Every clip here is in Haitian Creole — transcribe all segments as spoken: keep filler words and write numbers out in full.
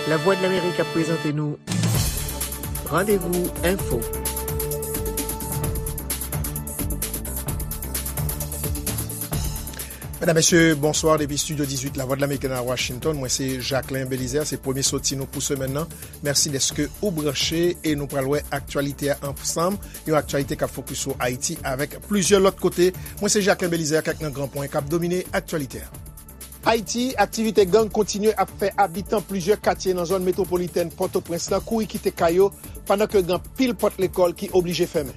Lavwadlamerik ap prezante nou Randevou Enfo. Medam, mesye, bonswa depi Estidyo dizuit Lavwadlamerik nan Washington. Mwen se Jacquelin Belizaire, se premye soti nou pou semèn nan. Mèsi dèske ou branche e nou pral wè aktyalite a ansanm. Yon aktyalite k ap fokis sou Ayiti avèk plizyè lòt kote. Mwen se Jacquelin Belizaire, kèk nan gran pwen k ap domine aktyalite a. Ayiti, aktivite gang kontinye ap fè abitan plizyè katye nan zòn metwopolitèn Pòtoprens lan kouri kite kay yo, pandan ke gen anpil pòt lekòl ki oblije fèmen.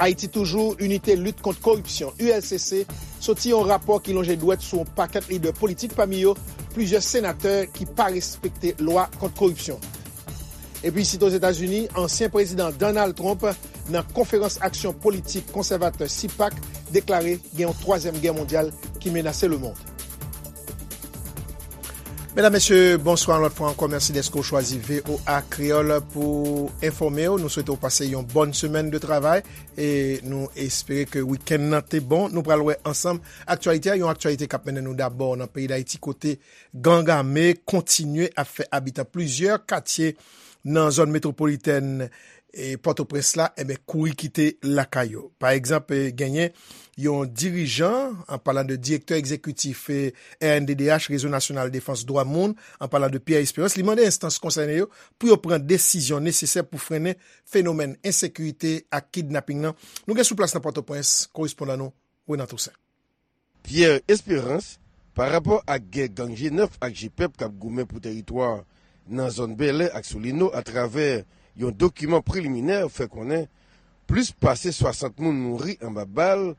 Ayiti Toujou, Inite Lit Kont Koripsyon, U L C C, soti yon rapò ki lonje dwèt sou yon pakèt lidè politik, pami yo plizyè senatè ki pa respekte lwa kont koripsyon. Epi, site Ozetazini, ansyen prezidan Donald Trump, nan konferans aksyon politik konsèvatè CPAC, deklare gen yon twazyèm gè mondyal ki menase lemonn. Medam, mesye, bonswa yon lòt fwa ankò. Mèsi dèske w chwazi V O A Kreyòl pou enfòme w. Nou swete w pase yon bòn semèn de travay e nou espere ke wikenn nan te bon. Nou pral wè ansanm aktyalite a, yon aktyalite k ap mennen nou dabò nan peyi Dayiti, kote gang ame kontinye ap fè abitan plizyè katye nan zòn metwopolitèn e Pòtoprens la, enben, kouri kite lakay yo. Pa egzanp, e, genyen yon dirijan, an palan de direktè egzekitif, e, R N D D H, Rezo Nasyonal Defans Dwa Moun, an palan de Pierre Espérance, li mande enstans konsène yo pou yo pran desizyon nesesè pou frennen fenomèn ensekirite ak kidnaping nan. Nou gen sou plas nan Pòtoprens, korespondan nou, Renan Toussaint. Pierre Espérance, pa rapò ak gè gang G nèf ak G pèp k ap goumen pou tèritwa nan zòn Bèlè ak Solino, atravè yon dokiman preliminè, fè konnen plis pase swasant moun mouri anba bal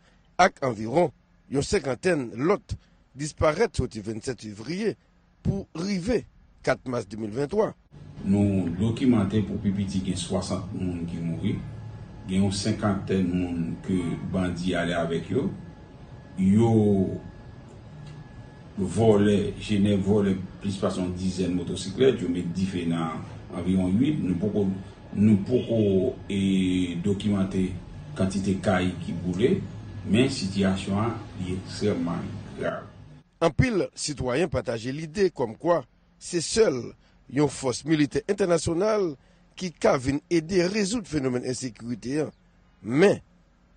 ak anviwon yon senkantèn lòt disparèt soti vennsèt fevriye pou rive kat mas de mil venntwa. Nou dokimante pou pi piti gen swasant moun ki mouri, gen yon senkantèn moun ke bandi ale avèk yo. Yo vòlè, G nèf vòlè plis pase yon dizèn motosiklèt, yo met dife nan anviwon uit. Nou poko, nou poko, e, dokimante kantite kay ki boule, men sitiyasyon an li ekstrèmman grav. Anpil sitwayen pataje lide kòmkwa se sèl yon fòs militè entènasyonal ki ka vin ede rezoud fenomèn ensekirite an. Men,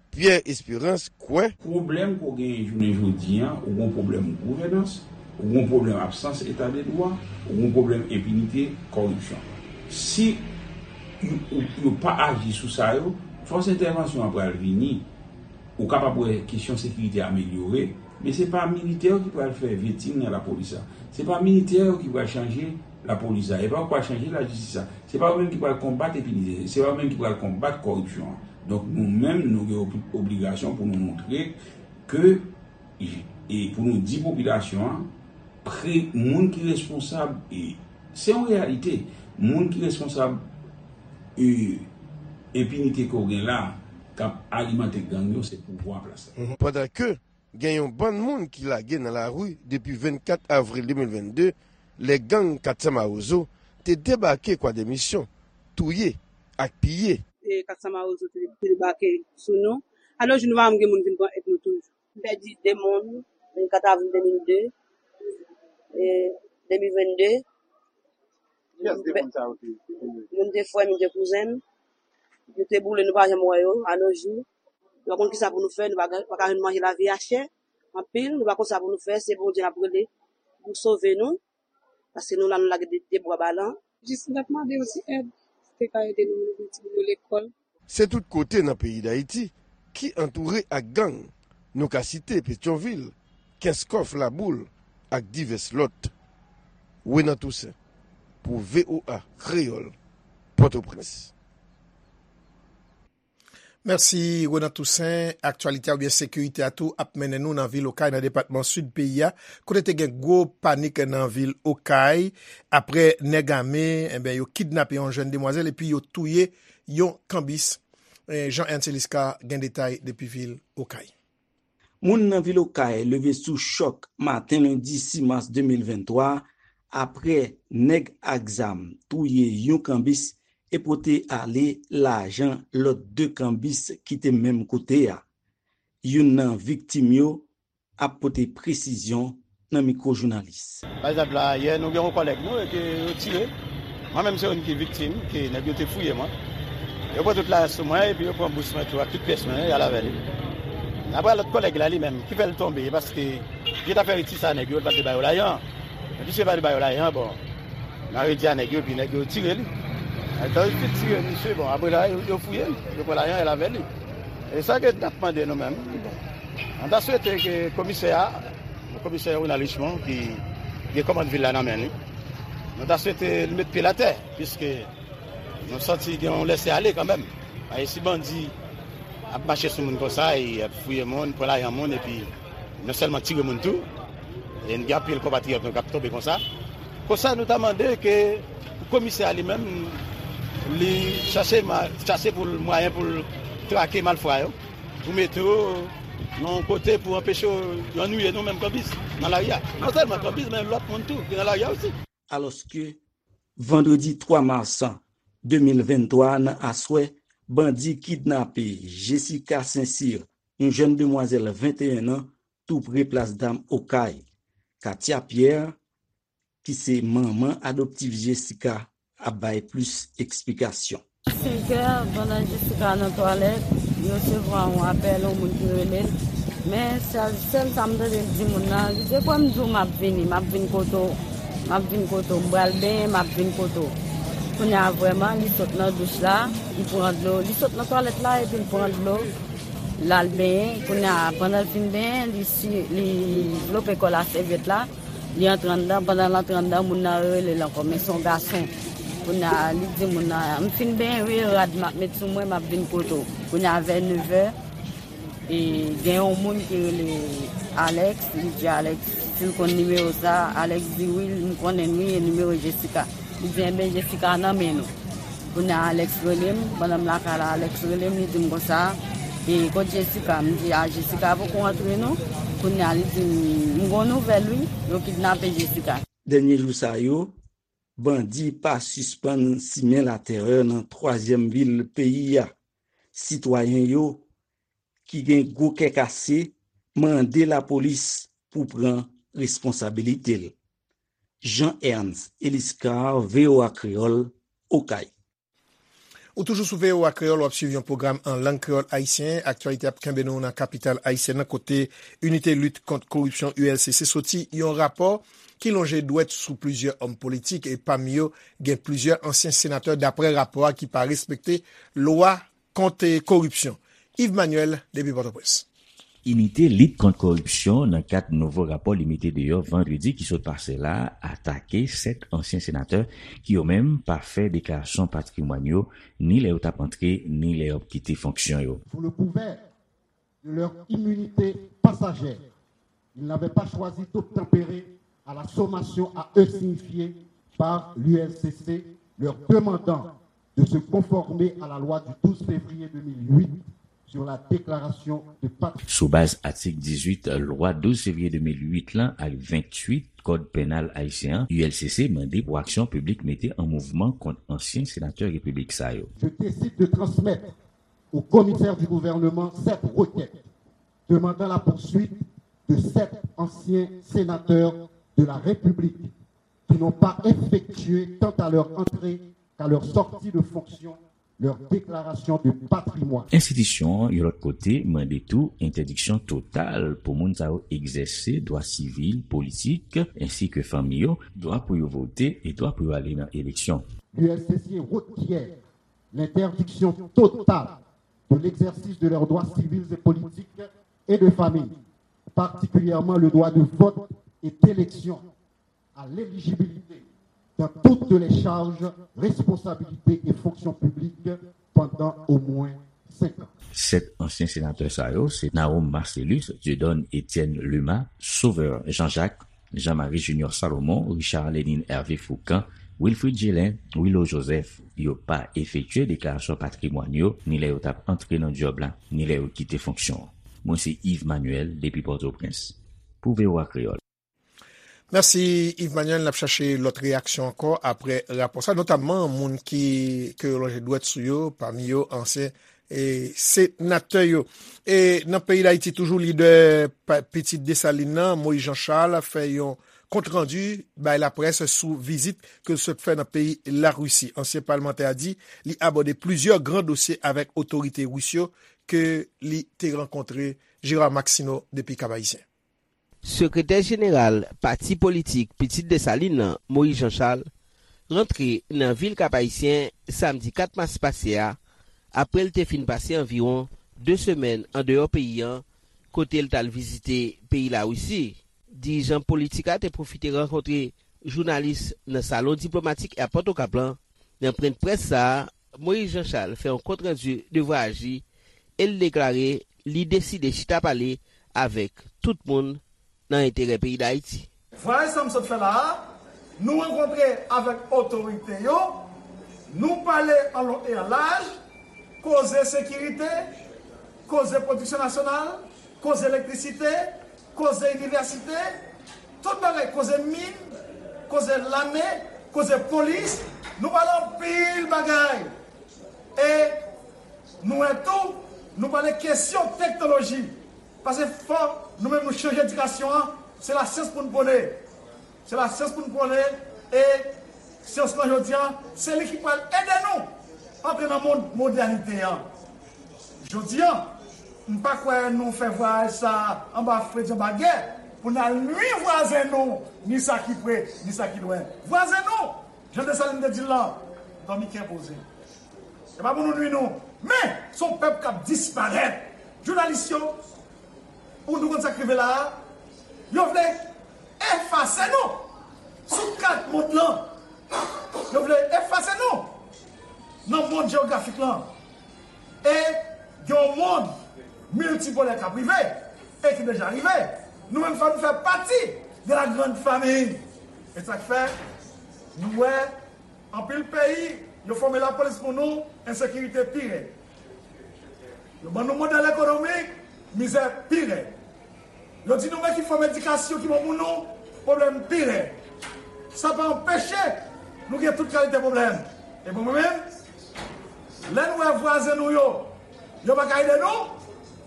Pierre Espérance kwè. Pwoblèm ke w genyen jounen jodi an, ou gen pwoblèm gouvènans, ou gen pwoblèm absans eta de dwa, ou gen pwoblèm enpinite, kòripsyon. Si yo, yo, yo pa aji sou sa yo, fòs entèvansyon an pral vini. Ou kapab wè kesyon sekirite amelyore, men se pa militè yo ki pral fè vetting nan lapolis la. Se pa militè yo ki pral chanje lapolis la. E pa yo ki pral chanje lajistis la. Se pa yo menm ki pral konbat enpinite. Se pa yo menm ki pral konbat kòripsyon an. Donk, nou menm, nou gen ob-, obligasyon pou nou montre ke, e pou nou di popilasyon an, pre-, moun ki responsab, e se yon reyalite, moun ki responsab, e, enpinite ke w gen la, k ap alimante gang yo, se pouvwa an plas la. Pandan ke gen yon bann moun ki lage nan lari depi vennkat avril de mil vennde, lè gang Katsa Mawozo te debake Kwadèmisyon, touye ak piye. E Katsa Mawozo te, te debake sou nou. Alò, nou pa janm gen moun vin pran èd nou toujou. M pèdi de moun, vennkat avril de mil de, e de mil vennde. Kiyès de moun sa yo te, te touye? Youn te frè m, youn te kouzen m. Yo te boule, nou pa janm wè yo, a nos jours. Nou pa konn kisa pou nou fè, nou pa, pa ka jwenn manje, lavi a chè anpil, nou pa konn sa pou nou fè, se Bondye n ap rele pou sove nou, paske nou la, nou lage de, de bra balan. Jis n ap mande yon ti èd, si te ka ede nou, nou voye timoun yo lekòl. Se tout kote nan peyi Dayiti ki antoure ak gang. Nou ka site Petyonvil, Kenskòf, Laboul ak divès lòt. Renan Toussaint pou V O A Kreyòl, Pòtoprens. Mèsi, Renan Toussaint. Aktyalite a oubyen sekirite a tou ap mennen nou nan vil Okay, nan depatman Sid peyi a, kote te gen gwo panik nan vil Okay, apre nèg ame, enben, yo kidnape yon jèn demwazèl epi yo touye yon kanbis. Eh, Jean Ernst Eliscar gen detay depi vil Okay. Moun nan vil Okay leve sou chòk maten lendi sis mas de mil venntwa, apre nèg ak zam touye yon kanbis e pote ale lajan lòt de kanbis ki te menm kote a. Youn nan viktim yo ap pote presizyon nan mikwo jounalis. Pa egzanp la, yè nou gen yon kòlèg nou e ke yo tire. Mwen menm se youn ki viktim, ke nèg yo te fouye mwen. Yo pran tout lajan sou mwen epi yo pran bous mwen tou ak tout pyès mwen, y al avè li. Apre lòt kòlèg la li menm, ki fè l tonbe, e paske vye afè Riti sa nèg yo, l pa te ba yo lajan. Epi si yo pa te ba yo lajan, bon, nan redi a nèg yo, epi nèg yo tire li. Lè yo fin tire misye, bon, apre la, yo, yo fouye l, yo pran lajan, y al avè li. E sa ke n ap mande nou menm, bon, nou ta swete ke komisè a, komisè Ronald Richemond ki gen kòmand vil la nan men li. Nou ta swete l met pye l atè, piske nou santi gen yon lese ale kanmenm. Paske si bandi ap mache sou moun konsa, e ap fouye moun, pran lajan moun, epi non sèlman tire moun tou, e n gen anpil konpatriyòt nou k ap tonbe konsa. Konsa, nou ta mande ke komisè a li menm, li chache ma-, chache pou l mwayen pou l trake malfra yo, pou mete yo nan yon kote pou anpeche yo, yo annuiye nou menm kanbis nan lari a. Non sèlman kanbis, men lòt moun tou ki nan lari a osi. Alòske, vandredi twa mas de mil venntwa nan aswè, bandi kidnape Jessica Saint-Cyr, yon jèn demwazèl venteyen an, tou pre plas dam Okay. Katia Pierre, ki se manman adoptif Jessica, ap bay plis eksplikasyon. Senkè, pandan Jessica nan twalèt, li resevwa yon apèl, yon moun ki rele l. Men sèl, sèl sa m tande l di moun nan, li di, "Kwè m di w m ap vini, m ap vin kote w, m ap vin kote w, m pral benyen, m ap vin kote w." Kounye a vrèman, li sot nan douch la, li pran dlo, li sot nan twalèt la epi l pran dlo, l al benyen. Kounye a, pandan l fin benyen, li si, li vlope kò l ak sèvyèt la, li antre anndan, pandan l antre anndan, moun nan rele l ankò, men se yon gason. Kounye a, li di moun nan, "M fin benyen wi, rad m ap met sou mwen, m ap vin kote w." Kounye a, vè nevè, e gen yon moun ki rele Alex, li di Alex si l konn nimewo sa, Alex di, "Wi, m konnen l wi, e nimewo Jessica." Li di, "Enben, Jessica nan men nou." Kounye a, Alex rele m, pandan m lakay la, Alex rele m, li di m konsa, "E kot Jessica?" M di, "A, Jessica poko rantre non." Kounye a, li di m, "M gon nouvèl wi, yo kidnape Jessica." Dènye jou sa yo, bandi pa sispann simen latèrè nan twazyèm vil peyi a. Sitwayen yo ki gen gwo kè kase mande lapolis pou pran responsabilite l. Jean Ernst Eliscar, V O A Kreyòl, Okay. Ou toujou sou V O A Kreyòl, w ap swiv yon pwogram an lang kreyòl ayisyen. Aktyalite ap kenbe nou nan kapital ayisyèn nan, kote Inite Lit Kont Koripsyon, U L C C, soti yon rapò ki lonje dwèt sou plizyè òm politik, e pami yo, gen plizyè ansyen senatè, daprè rapò a, ki pa respekte lwa kont koripsyon. Yves Manuel, depi Pòtoprens. Inite Lit Kont Koripsyon, nan kad nouvo rapò li mete deyò vandredi ki sot pase la, atake sèt ansyen senatè ki yo menm pa fè deklarasyon patrimwàn yo, ni lè yo t ap antre, ni lè y ap kite fonksyon yo. Sous le couvert de leur immunité passagère, ils n'avaient pas choisi d'obtempérer à la sommation à eux signifiée par l'U L C C, leur demandant de se conformer à la loi du douze février deux mille huit sur la déclaration de patrimoine. Sou baz atik dizuit lwa douz fevriye de mil uit lan ak ventuit Kòd Penal ayisyen an, U L C C mande pou aksyon piblik mete an mouvman kont ansyen senatè repiblik sa yo. Je décide de transmettre au commissaire du gouvernement cette requête demandant la poursuite de sept anciens sénateurs de la République qui n'ont pas effectué quant à leur entrée qu'à leur sortie de fonction leur déclaration de patrimoine. Enstitisyon an, yon lòt kote, mande tou entèdiksyon total pou moun sa yo egzèse dwa sivil, politik, ensi ke fanmi yo, dwa pou yo vote e dwa pou yo ale nan eleksyon. L'U L C C requiert l'interdiction totale de l'exercice de leurs droits civils et politiques et de famille, particulièrement le droit de vote et d'élection, à l'éligibilité dans toutes les charges, responsabilités et fonctions publiques pendant au moins cinq ans. Sèt ansyen senatè sa yo se Naome Marcelus, Dieudonne Etienne Luma, Sauveur Jean-Jacques, Jean-Marie Junior Salomon, Richard Lénine Hervé Fourcand, Wilfrid Gelin, Willo Joseph. Yo pa efektye deklarasyon patrimwàn yo, ni lè yo t ap antre nan djòb la, ni lè yo kite fonksyon an. Mwen se Yves Manuel depi Pòtoprens pou V O A Kreyòl. Mèsi, Yves Manuel. N ap chache lòt reyaksyon ankò apre rapò sa, notamman moun ki, ke yo lonje dwèt sou yo, pami yo ansyen e, senatè yo. E nan peyi Dayiti toujou, lidè pa- Pitit Desalin nan, Moïse Jean Charles, fè yon kontrandi bay laprès sou vizit ke l sot fè nan peyi Larisi. Ansyen palmantè a di li abòde plizyè gran dosye avèk otorite ris yo ke li te rankontre. Gérard Maxineau depi Kap-Ayisyen. Sekretè jeneral pati politik Pitit Desalin nan, Moïse Jean Charles, rantre nan vil Kap-Ayisyen samdi kat mas pase a, apre l te fin pase anviwon de semèn andeyò peyi a, kote l t al vizite peyi Larisi. Dirijan politik la te pwofite rankontre jounalis nan salon diplomatik Airport Okap lan. Nan pwennprès sa a, Moïse Jean Charles fè yon kontrandi de vwayaj li e l deklare li deside chita pale avèk tout moun nan enterè peyi Dayiti. Vwayaj sa m sot fè la a, nou rankontre avèk otorite yo, nou pale an lon e an laj, koze sekirite, koze pwodiksyon nasyonal, koze elektrisite, koze inivèsite, tout bagay, koze min, koze lame, koze polis, nou pale anpil bagay. E nou wè tou, nou pale kesyon teknoloji. Paske fò nou menm nou chanje edikasyon an, se lasyans pou n pwone. Se lasyans pou n pwone e syans lan jodi an, se li ki pral ede nou antre nan mond modènite an. Jodi an, m pa kwè nou fè vwayaj sa a anba fredi, anba gè, pou n al nwi vwazen nou, ni sa ki pre, ni sa ki lwen. Vwazen nou, jan Desalin te di l lan, dòmi kè poze. Se pa pou nou nwi nou. Men, se yon pèp k ap disparèt. Jounalis yo, ou nou konn sa k rive la a, yo vle efase nou sou kat mond lan. Yo vle efase nou nan mond jewografik lan. E gen yon mond miltipolè k ap rive, e ki deja rive. Nou menm, fò nou fè pati de la grande famille. E sa k fè, nou wè anpil peyi, yo fòme lapolis pou nou, ensekirite pi rèd. Yo ban nou modèl ekonomik, mizè pi rèd. Yo di nou men ki fòm edikasyon ki bon pou nou, pwoblèm pi rèd. Sa pa anpeche nou gen tout kalite pwoblèm. E pou mwen menm, lè nou wè vwazen nou yo, yo pa ka ede nou,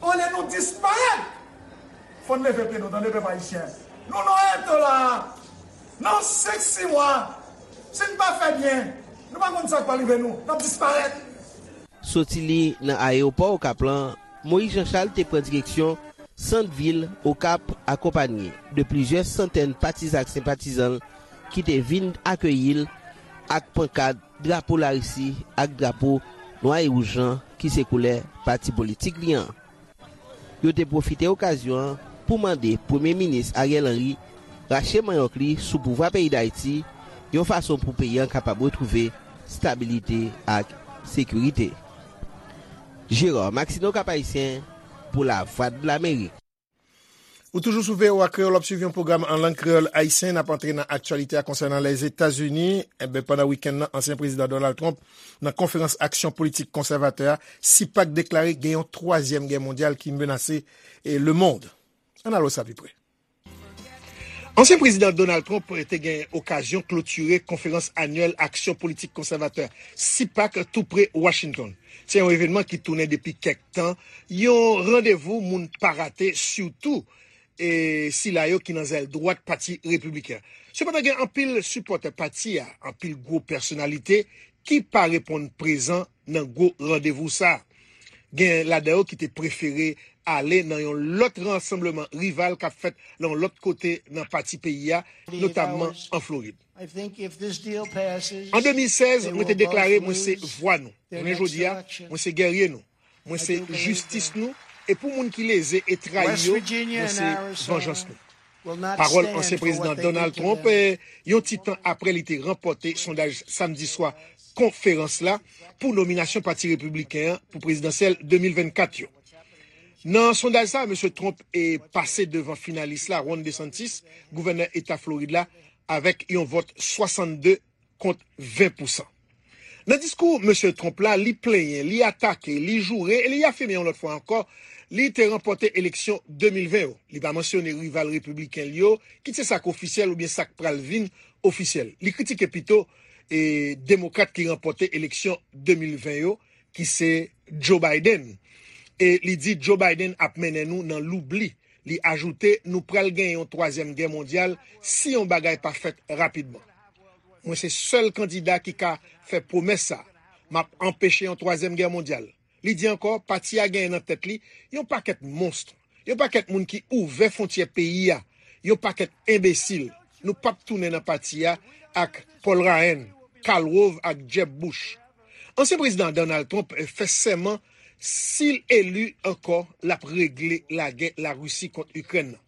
olye nou disparèt, fò n leve pye nou, tande pèp ayisyen. Nou nan eto la a. Nan senk, sis mwa, si n pa fè byen, nou pa konn sa k pral rive nou. N ap disparèt. Soti li nan ayewopò Okap lan, Moïse Jean Charles te pran direksyon sant vil Okap, akonpanye de plizyè santèn patizan ak senpatizan l ki te vin akeyi l ak pankad, drapo Larisi ak drapo nwa e wouj lan ki se koulè pati politik li an. Yo te pwofite okazyon an pou mande Premye Minis Ariel Henry rache manyòk li sou pouvwa peyi Dayiti, yon fason pou peyi an kapab retwouve stabilite ak sekirite. Gérard Maxineau, Kap Ayisyen, pou Lavwadlamerik. Ou toujou sou V O A Kreyòl, w ap swiv yon pwogram an lang kreyòl ayisyen. N ap antre nan aktyalite a konsènan Lèzetazini. Enben, pandan wikenn nan, ansyen prezidan Donald Trump, nan konferans aksyon politik konsèvatè a, sipak deklare gen yon twazyèm gè mondyal ki menase, e, lemonn. Ann al wè sa pi pre. Ansyen prezidan Donald Trump te gen okazyon klotire konferans anyèl aksyon politik konsèvatè, sipak, tou pre Washington. Se yon evènman ki tounen depi kèk tan yon randevou moun pa rate, sitou, e, sila yo ki nan zèl dwat pati repibliken. Sepandan, gen anpil sipòtè pati a, anpil gwo pèsonalite ki pa reponn prezan nan gwo randevou sa a. Gen ladan yo ki te prefere ale nan yon lòt rasanbleman rival k ap fèt nan yon lòt kote nan pati peyi a, notamman an Florid. An de mil sèz, mwen te deklare mwen se vwa nou. Jounen jodi a, mwen se gèrye nou. Mwen se jistis nou. E pou moun ki leze e trayi yo, mwen se vanjans nou. Pawòl ansyen prezidan Donald Trump, eh, yon ti tan apre li te ranpòte sondaj samdi swa konferans la pou nominasyon Pati Repibliken an pou prezidansyèl de mil vennkat yo. Nan sondaj sa, mesye Trump e pase devan finalis la, Ron DeSantis, gouvènè eta Florid la, avèk yon vòt swasannde kont ven pousan. Nan diskou mesye Trump la, li plenyen, li atake, li joure e li afime yon lòt fwa ankò li te ranpòte eleksyon de mil ven yo. Li pa mansyone rival repibliken li yo, kit se sa k ofisyèl oubyen sa k pral vin ofisyèl. Li kritike pito, e, demokrat ki ranpòte eleksyon de mil ven yo, ki se Joe Biden. E li di Joe Biden ap mennen nou nan loubli. Li ajoute, nou pral gen yon twazyèm gè mondyal si yon bagay pa fèt rapidman. Mwen se sèl kandida ki ka fè pwomès sa. M ap anpeche yon twazyèm gè mondyal. Li di ankò, pati a genyen nan tèt li yon pakèt monst, yon pakèt moun ki ouvè fwontyè peyi a, yon pakèt enbesil. Nou p ap tounen nan pati a ak Paul Ryan, Karl Rove ak Jeb Bush. Ansyen prezidan Donald Trump fè sèman si l eli ankò, l ap regle lagè Larisi kont Ikrèn nan.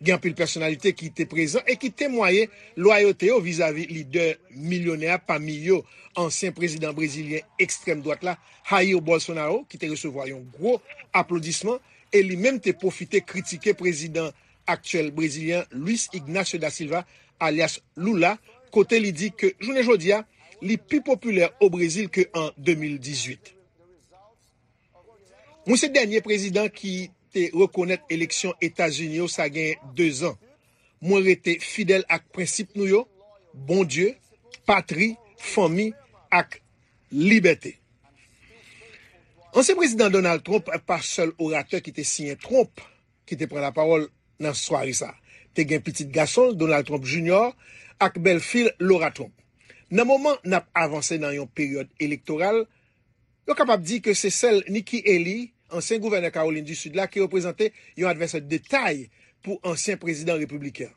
Gen anpil pèsonalite ki te prezan e ki temwaye lwayote yo vizavi lidè milyonè a, pami yo ansyen prezidan brezilyen ekstrèm dwat la, Jair Bolsonaro, ki te resevwa yon gwo aplodisman e li menm te pwofite kritike prezidan aktyèl brezilyen Luiz Ignacio da Silva, alyas Lula, kote li di ke jounen jodi a, li pi popilè o Brezil ke an de mil dizuit. Mwen se dènye prezidan ki te rekonèt eleksyon Etazini yo sa gen dezan. Mwen rete fidèl ak prensip nou yo, Bondye, patri, fanmi ak libète. Ansyen prezidan Donald Trump pa sèl oratè ki te siyen Trump, ki te pran lapawòl nan sware sa. Te gen pitit gason l, Donald Trump Junior, ak bèlfi l, Laura Trump. Nan moman n ap avanse nan yon peryòd elektoral, yo kapab di ke se sèl Nikki Haley, ansyen gouvènè Kawolin di Sid la, ki reprezante yon advèsè de tay pou ansyen prezidan repibliken.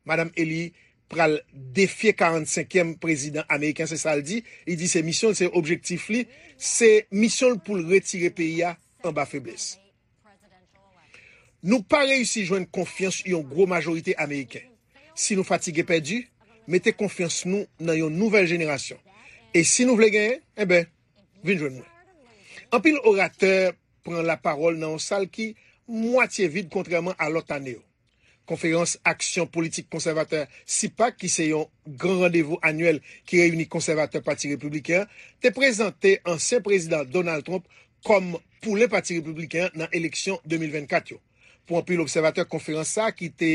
Madanm Haley pral defye karannsenkyèm prezidan ameriken, se sa l di. Li di se misyon l, se objektif li, se misyon l pou l retire peyi a anba feblès. Nou pa reyisi jwenn konfyans yon gwo majorite ameriken. Si nou fatige pèdi, mete konfyans nou nan yon nouvèl jenerasyon. E si nou vle genyen, enben, vin jwenn mwen. Anpil oratè pran lapawòl nan yon sal ki mwatye vid kontrèman a lòt ane yo. Konferans Aksyon Politik Konsèvatè, CPAC, ki se yon gran randevou anyèl ki reyini konsèvatè Pati Repibliken an, te prezante ansyen prezidan Donald Trump kòm poulen Pati Repibliken an nan eleksyon de mil vennkat yo. Pou anpil obsèvatè, konferans sa a ki te,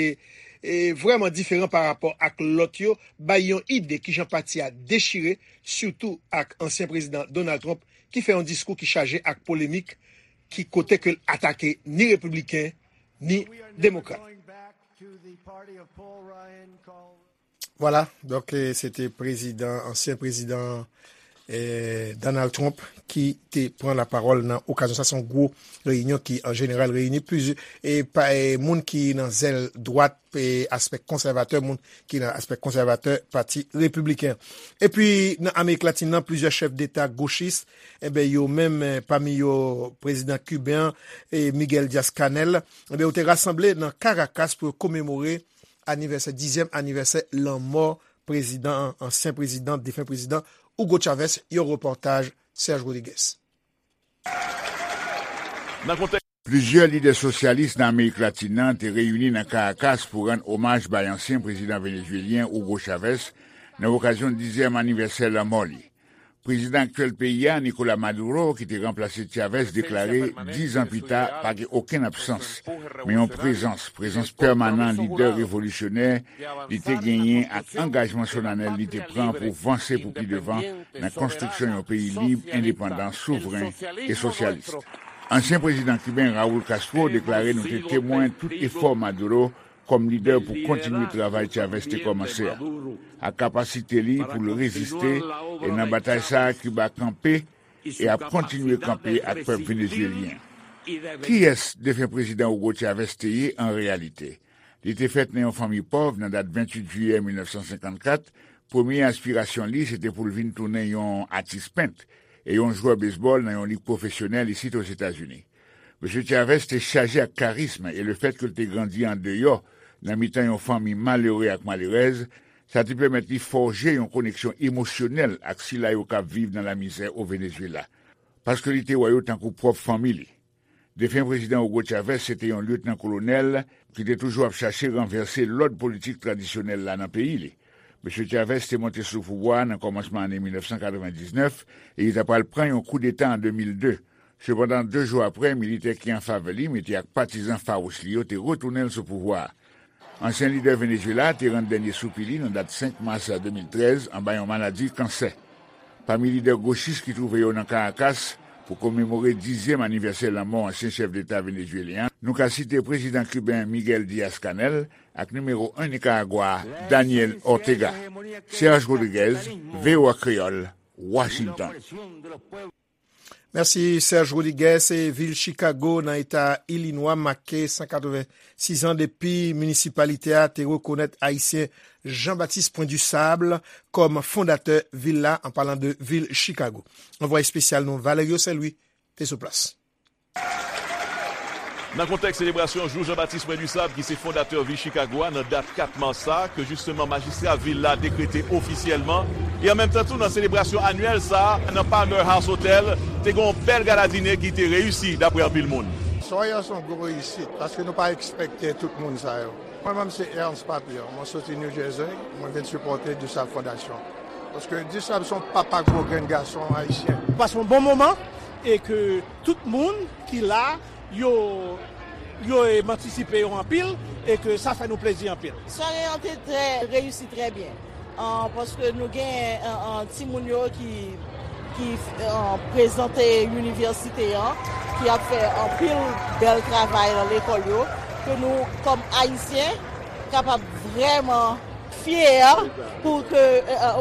e, vrèman diferan parapò ak lòt yo, bay yon ide kijan pati a dechire, sitou ak ansyen prezidan Donald Trump, ki fè yon diskou ki chaje ak polemik, ki kote ke l atake ni repibliken, ni demokrat. Vwala, donk, e, se te prezidan, ansyen prezidan, e, Donald Trump ki te pran lapawòl nan okazyon sa. Se yon gwo reyinyon ki, an jeneral, reyini plizyè, e, pa, e, moun ki nan zèl dwat, e, aspè konsèvatè, moun ki nan aspè konsèvatè Pati Repibliken. Epi, nan Amerik Latin nan, plizyè chèf deta gochis, enben, yo menm, e, pami yo, prezidan kiben an, e, Miguel Diaz-Canel, enben, yo te rasanble nan Caracas pou yo komemore anivèsè, dizyèm anivèsè lanmò prezidan an, ansyen prezidan, defen prezidan Hugo Chavez, yon repòtaj Serge Rodriguez. Plizyè lidè sosyalis nan Amerik Latin nan te reyini nan Caracas pou rann omaj bay ansyen prezidan venezuelyen Hugo Chavez nan okazyon dizyèm anivèsè lanmò li. Prezidan aktyèl peyi a, Nicolas Maduro, ki te ranplase Chavez, deklare, diz an pita, pa gen okenn absans, men yon prezans, prezans pèmanan lidè revolisyonè li te genyen ak angajman solanèl li te pran pou vanse pou pi devan nan konstriksyon yon peyi lib, endepandan, souvren e sosyalis. Ansyen prezidan kiben Raul Castro deklare nou te temwen tout efò Maduro kòm lidè pou kontinye travay Chavez te kòmanse a, ak kapasite li pou l reziste, e nan batay sa a Kiba kanpe e ap kontinye kanpe ak pèp venezuelyen. Kiyès defen prezidan Hugo Chavez te ye an reyalite? Li te fèt nan yon fanmi pòv nan dat venntuit jiyè mil nèf san senkannkat, premye aspirasyon li se te pou l vin tounen yon atis pent e yon jwè bezbòl nan yon lig pwofesyonèl isit Ozetazini. Mesye Chavez te chaje ak karizm e lefètke l te grandi andeyò, nan mitan yon fanmi malere ak malerèz, sa te pèmèt li fòje yon koneksyon emosyonèl ak sila yo k ap viv nan lamizè o Venezuela. Paske li te wè yo tankou pwòp fanmi li. Defen prezidan Hugo Chavez se te yon lyetnan kolonèl ki te toujou ap chache ranvèse lòd politik tradisyonèl la nan peyi li. Mesye Chavez te monte sou pouvwa a nan kòmansman ane mil nèf san katrevendiznèf e li ta pral pran yon koudeta an de mil de. Sepandan, de jou apre, militè ki an favè li, mete ak patizan fawouch li yo, te retounen l sou pouvwa a. Ansyen lidè Venezuela te rann dènye soupi li nan dat senk mas de mil trèz anba yon maladi kansè. Pami lidè gochis ki twouve yo nan Caracas, Pou komemore dizyèm anivèsè lanmò ansyen chèf deta venezwelyen an, nou ka site prezidan kiben Miguel Diaz-Canel ak nimewo en Nikaragwa a, Daniel Ortega. Serge Rodriguez, V O A Kreyòl, Washington. Mèsi Serge Rodriguez. E vil Chicago nan eta Ilinwa make san katrevensis an depi minisipalite a te rekonèt Ayisyen Jean Baptiste Point du Sable kòm fondatè vil la, an palan de vil Chicago. Anvwaye espesyal nou Valerio Saint Louis te sou plas. Nan kontèks selebrasyon jou Jean Baptiste Point du Sable ki se fondatè vil Chicago a nan dat kat mas sa a, ke jisteman majistra vil la dekrete ofisyèlman, e an menm tan tou nan selebrasyon anyèl sa a nan Palmer House Hotel, te gen yon bèl gala dine ki te reyisi dapre anpil moun. Sware a se yon gwo reyisit paske nou pa ekspekte tout moun sa yo. Mwen menm se Ernst Papier, mwen soti New Jersey, mwen vin sipòte Dusab Fondasyon. Paske Dusab se yon papa gwo grenn gason ayisyen. Pase yon bon moman e ke tout moun ki la yo yo e m antisipe yo anpil e ke sa fè nou plezi anpil. Sware an te trè reyisi trè byen. Paske nou gen timoun yo ki ki prezante inivèsite an, ki ap fè anpil bèl travay nan lekòl yo, ke nou kòm ayisyen kapab vrèman fyè pou ke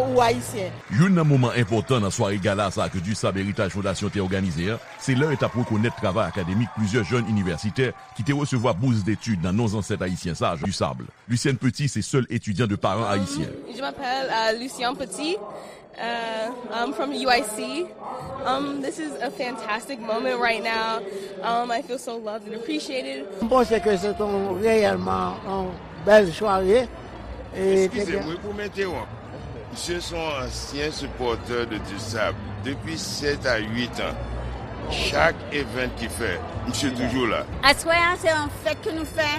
ou ayisyen. Youn nan moman enpòtan nan sware gala sa ke Dusab Heritage Fondasyon te òganize an, se lè yo t ap rekonèt travay akademik plizyè jèn inivèsitè ki te resevwa bous detid nan non zansèt ayisyen sa a, Dusab. Lucienne Petit se sèl etidyan de paran ayisyen. Je m'appelle euh, Lucien Petit. Uh, I'm from U I C. Um, this is a fantastic moment right now. Um, I feel so loved and appreciated. M panse ke se yon reyèlman yon bèl sware. Eskize m wi pou m entewonp. Misye se yon ansyen sipòtè de Dusab depi sèt a uit an. Chak event ki fè, misye toujou la. Aswè a se yon fèt ke nou fè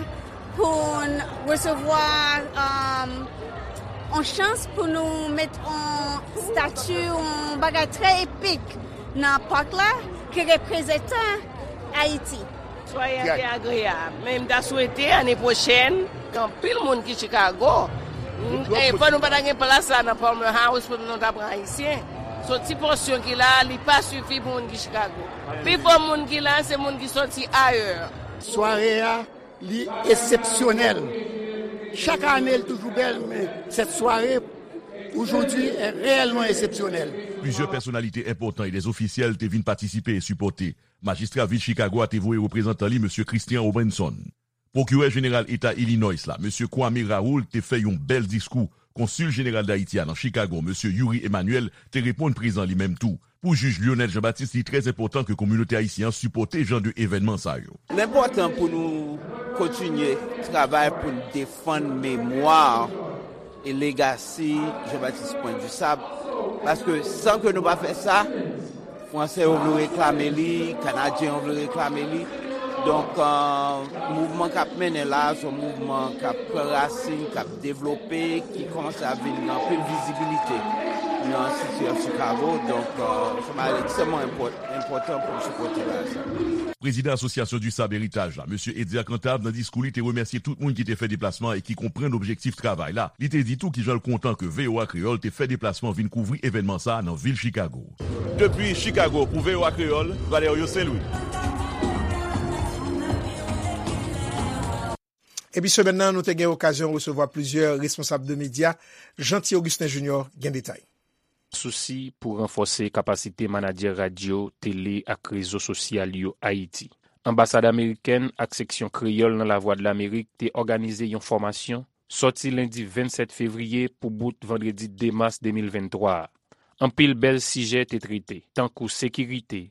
pou n resevwa yon chans pou nou met yon stati, yon bagay trè epik nan pak la ki reprezante Ayiti. Sware a te agreyab, men m ta swete ane pwochèn gen anpil moun ki Chicago. Fò nou pa ta gen plas la nan Palmer House pou nou ta pran Ayisyen. Se yon ti pòsyon ki la, li pa sifi pou moun ki Chicago. Pifò moun ki la, se moun ki sòti ayè. Sware a, li eksepsyonèl. Chak ane, li toujou bèl, men sèt sware, aujourd'hui, est réellement exceptionnelle. Plizyè pèsonalite enpòtan e dè ofisyèl te vin patisipe e sipòte. Majistra vil Chicago a te voye reprezantan li, mesye Christian Robinson. Pwokirè Jeneral Eta Illinois la, mesye Kwame Raoul, te fè yon bèl diskou. Konsil Jeneral Dayiti a nan Chicago, mesye Youri Emmanuel, te reponn prezan li menm tou. Pou jij Lionel Jean-Baptiste, li trè enpòtan ke kominote ayisyen an sipòte jan de evènman sa yo. L enpòtan pou nou kontinye travay pou n defann memwa e legasi Jean-Baptiste Point du Sable, paske san ke nou pa fè sa, Fransè yo vle reklame li, Kanadyen yo vle reklame li. Donk, mouvman k ap mennen la a, se yon mouvman k ap pran rasin, k ap devlope, ki kòmanse ap vin gen anpil vizibilite nan City of Chicago. Donk, se yon bagay ekstrèmman enpòtan pou n sipòte bagay sa. Prezidan Asosyasyon Dusab Heritage la, mesye Eddy Cantave, nan diskou li, te remèsye tout moun ki te fè deplasman e ki konprann objektif travay la. Li te di tou kijan l kontan ke V O A Kreyòl te fè deplasman vin kouvri evènman sa a nan vil Chicago. Depi Chicago pou V O A Kreyòl, Valerio Saint-Louis. Epi semèn nan, nou te gen okazyon resevwa plizyè responsab de medya. Jeanty Augustin Junior gen detay. Sousi pou ranfòse kapasite manadjè radyo, tele ak rezo sosyal yo Ayiti. Anbasad amerikèn ak seksyon kreyòl nan Lavwadlamerik te òganize yon fòmasyon sòti lendi vennsèt fevriye pou bout vandredi de mas de mil venntwa a. Anpil bèl sijè te trete, tankou sekirite,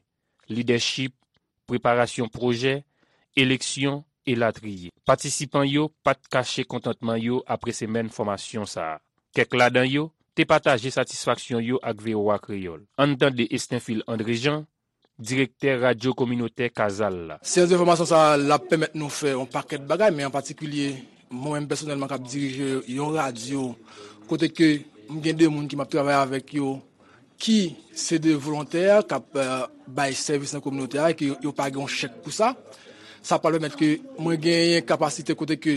lidèchip, preparasyon pwojè, eleksyon, elatriye. Patisipan yo pa t kache kontantman yo apre semèn fòmasyon sa a. Kèk ladan yo te pataje satisfaksyon yo ak V O A Kreyòl. Ann tande Estenfil Andrejan, direktè radyo kominotè Kazal la. Seyans de fòmasyon sa a, l ap pèmèt nou fè yon pakèt bagay, men an patikilye, mwen menm pèsonèlman k ap dirije yon radyo, kote ke m gen de moun ke m ap travay avèk yo, ki se de volontè k ap bay sèvis nan kominote a e ke yo pa gen yon chèk pou sa. Sa pral pèmèt ke mwen genyen kapasite kote ke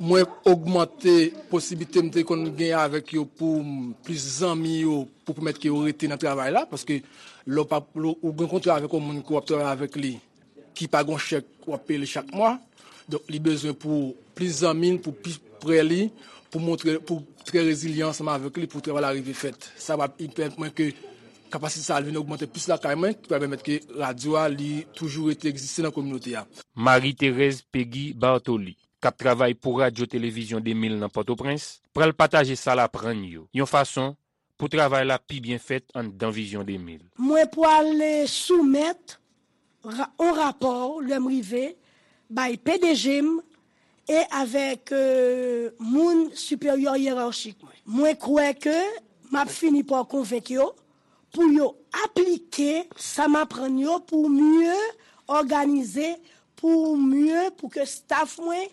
Mwen ogmante posiblite m te konn gen avèk yo pou m plis zanmi yo, pou pèmèt ke yo rete nan travay la, paske lè w pa, lè w gen kontra avèk yon moun ke w ap travay avèk li, ki pa gen chèk w ap peye l chak mwa. Donk, li bezwen pou plis zanmi l, pou pi prè li, pou montre, pou trè rezilyan ansanm avèk li, pou travay la rive fèt. Sa va pèmèt mwen ke kapasite sa a vin ogmante plis lakay mwen, ki va pèmèt ke radyo a, li toujou rete egziste nan kominote a. Marie Thérèse Peggy Bartoli, k ap travay pou Radyo Televizyon de mil nan Pòtoprens, pral pataje sa l aprann yo, yon fason pou travay la pi byen fèt anndan Vizyon de mil. Mwen pwale soumèt ra- on rapò lè m rive bay P D G m e avèk euh, moun siperyè yerachik mwen. Mwen kwè ke m ap fini pa konvenk yo pou yo aplike sa m aprann yo pou mye òganize, pou mye, pou ke staff mwen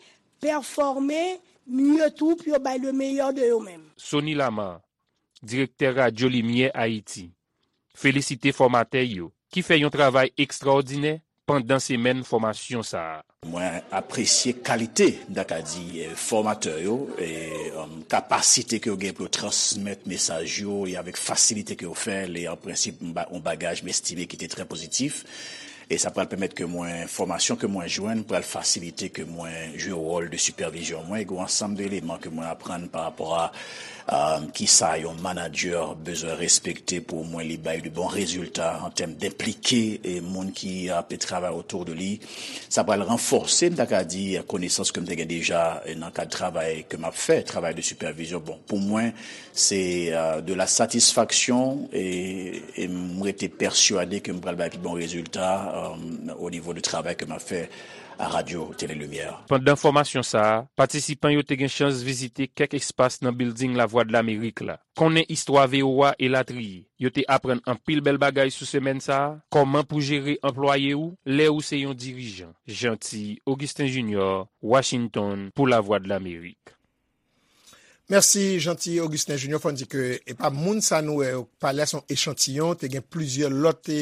pèfòme mye tou, pou yo bay le meilleur de yo menm. Sony Lamar, direktè Radyo Limyè Ayiti, felisite fòmatè yo ki fè yon travay ekstrawòdinè pandan semèn fòmasyon sa a. Mwen apresye kalite, m ta ka di, eh, fòmatè yo, e, um, kapasite ke yo gen pou yo transmèt mesaj yo, e avèk fasilite ke yo fè l, e an prensip, m ba- yon bagaj m estime ki te trè pozitif. E sa pral pèmèt ke mwen, fòmasyon ke mwen jwenn, pral fasilite ke mwen jwe wòl de sipèvizyon mwen, e gen yon ansanm de eleman ke mwen aprann pa rapò a, um, kisa yon manadjè bezwen respekte pou mwen li bay de bon rezilta an tèm denplike, e, moun ki ap travay otou de li. Sa pral ranfòse, m ta ka di, konesans ke m te gen deja, e, nan kad travay ke m ap fè, travay de sipèvizyon. Bon, pou mwen, se, euh, de la satisfaction, e, e m rete pèswade ke m pral bay pi bon rezilta, euh, o nivo de travay ke m ap fè a Radyo Tele Limyè. Pandan fòmasyon sa a, patisipan yo te gen chans vizite kèk espas nan bilding Lavwadlamerik la, konnen istwa V O A elatriye. Yo te aprann anpil bèl bagay sou semèn sa a, kòman pou jere anplwaye ou lè ou se yon dirijan. Jeanty Augustin Junior, Washington, pou Lavwadlamerik. Mèsi, Jeanty Augustin Junior. Fò n di ke e pa moun sa nou wè yo pale a, se yon echantiyon. Te gen plizyè lòt e,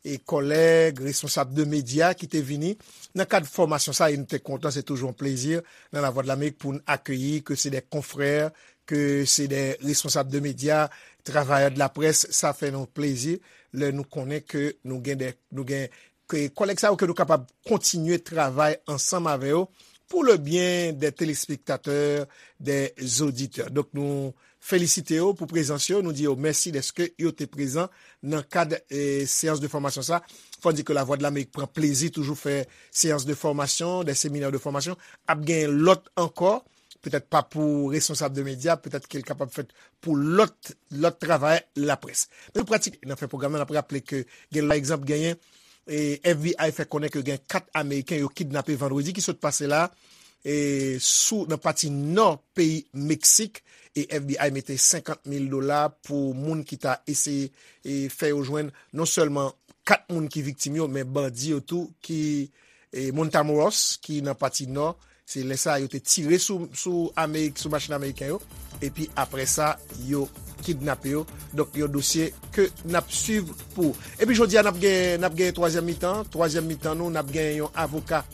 e kòlèg, responsab de medya ki te vini nan kad fòmasyon sa, e nou te kontan, se toujou yon plezi nan Lavwadlamerik pou n akeyi ke se de konfrè, ke se de responsab de medya, travayè de la près, sa fè nou plezi lè nou konnen ke nou gen de, nou gen ke kòlèg sa yo ke nou kapab kontinye travay ansanm avè yo pour le bien des téléspectateurs, des auditeurs. Donk nou felisite yo pou prezans yo, nou di yo mèsi dèske yo te prezan nan kad e, seyans de fòmasyon sa. Fò n di ke Lavwadlamerik pran plezi toujou fè seyans de fòmasyon, de seminè de fòmasyon. Ap gen lòt ankò, petèt pa pou responsab de medya, petèt ke l kapab fèt pou lòt lòt travay laprès. Men nou pratik nan fen pwogram nan, n ap raple ke gen pa egzanp genyen e F B I fè konnen ke gen kat Ameriken yo kidnape vandredi ki sot pase la e sou nan pati nò peyi Meksik, e F B I mete senkant mil dola pou moun ki ta eseye e fè yo jwenn non sèlman kat moun ki viktim yo, men bandi yo tou ki e Matamoros ki nan pati nò. Se lè sa a yo te tire sou, sou Amerik, sou machin ameriken yo. Epi apre sa, yo kidnape yo. Donk, yon dosye ke n ap swiv pou ou. Epi jodi a, n ap gen, n ap gen twazyèm mitan. Twazyèm mitan nou, n ap gen yon avoka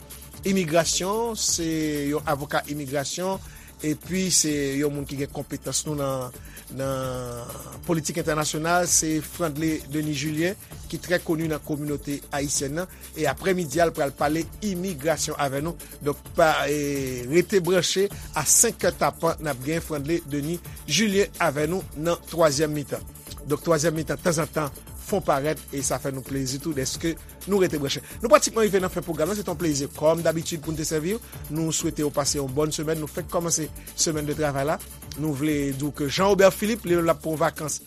imigrasyon. Se yon avoka imigrasyon. Epi se yon moun ki gen konpetans nou nan, nan politik entènasyonal. Se Frandley Denis Julien, ki trè koni nan kominote ayisyèn nan. E aprè midi a, l pral pale imigrasyon avè nou. Donk, pa, e, rete branche a senk è tapan, n ap gen Frandley Denis Julien avè nou nan twazyèm mitan. Donk, twazyèm mitan, tanzantan, fon parèt, e sa fè nou plezi tou dèske nou rete branche. Nou pratikman rive nan fen pwogram nan, se te yon plezi, kòm dabitid, pou n te sèvi w. Nou swete w pase yon bòn semèn. Nou fèk kòmanse semèn de travay la. Nou vle di w ke Jean Robert Philippe, li menm, l ap pran vakans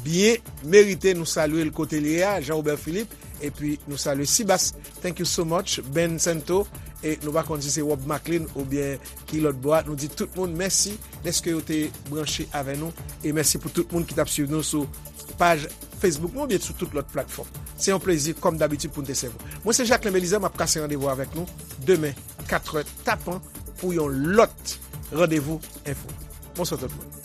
byen merite. Nou salye l kote l ye a, Jean Robert Philippe, epi nou salye Sibas. Thank you so much, Ben Santo. E nou pa konn si se Rob Maclean oubyen ki lòt bò a. Nou di tout moun mèsi dèske yo te branche avè nou. E mèsi pou tout moun ki t ap swiv nou sou paj Facebook nou oubyen sou tout lòt platfòm. Se yon plezi, kòm dabitid, pou n te sèvi w. Mwen, se Jacquelin Belizaire, m ap kase randevou avèk nou demen, kat è tapan, pou yon lòt randevou enfo. Bonswa tout moun.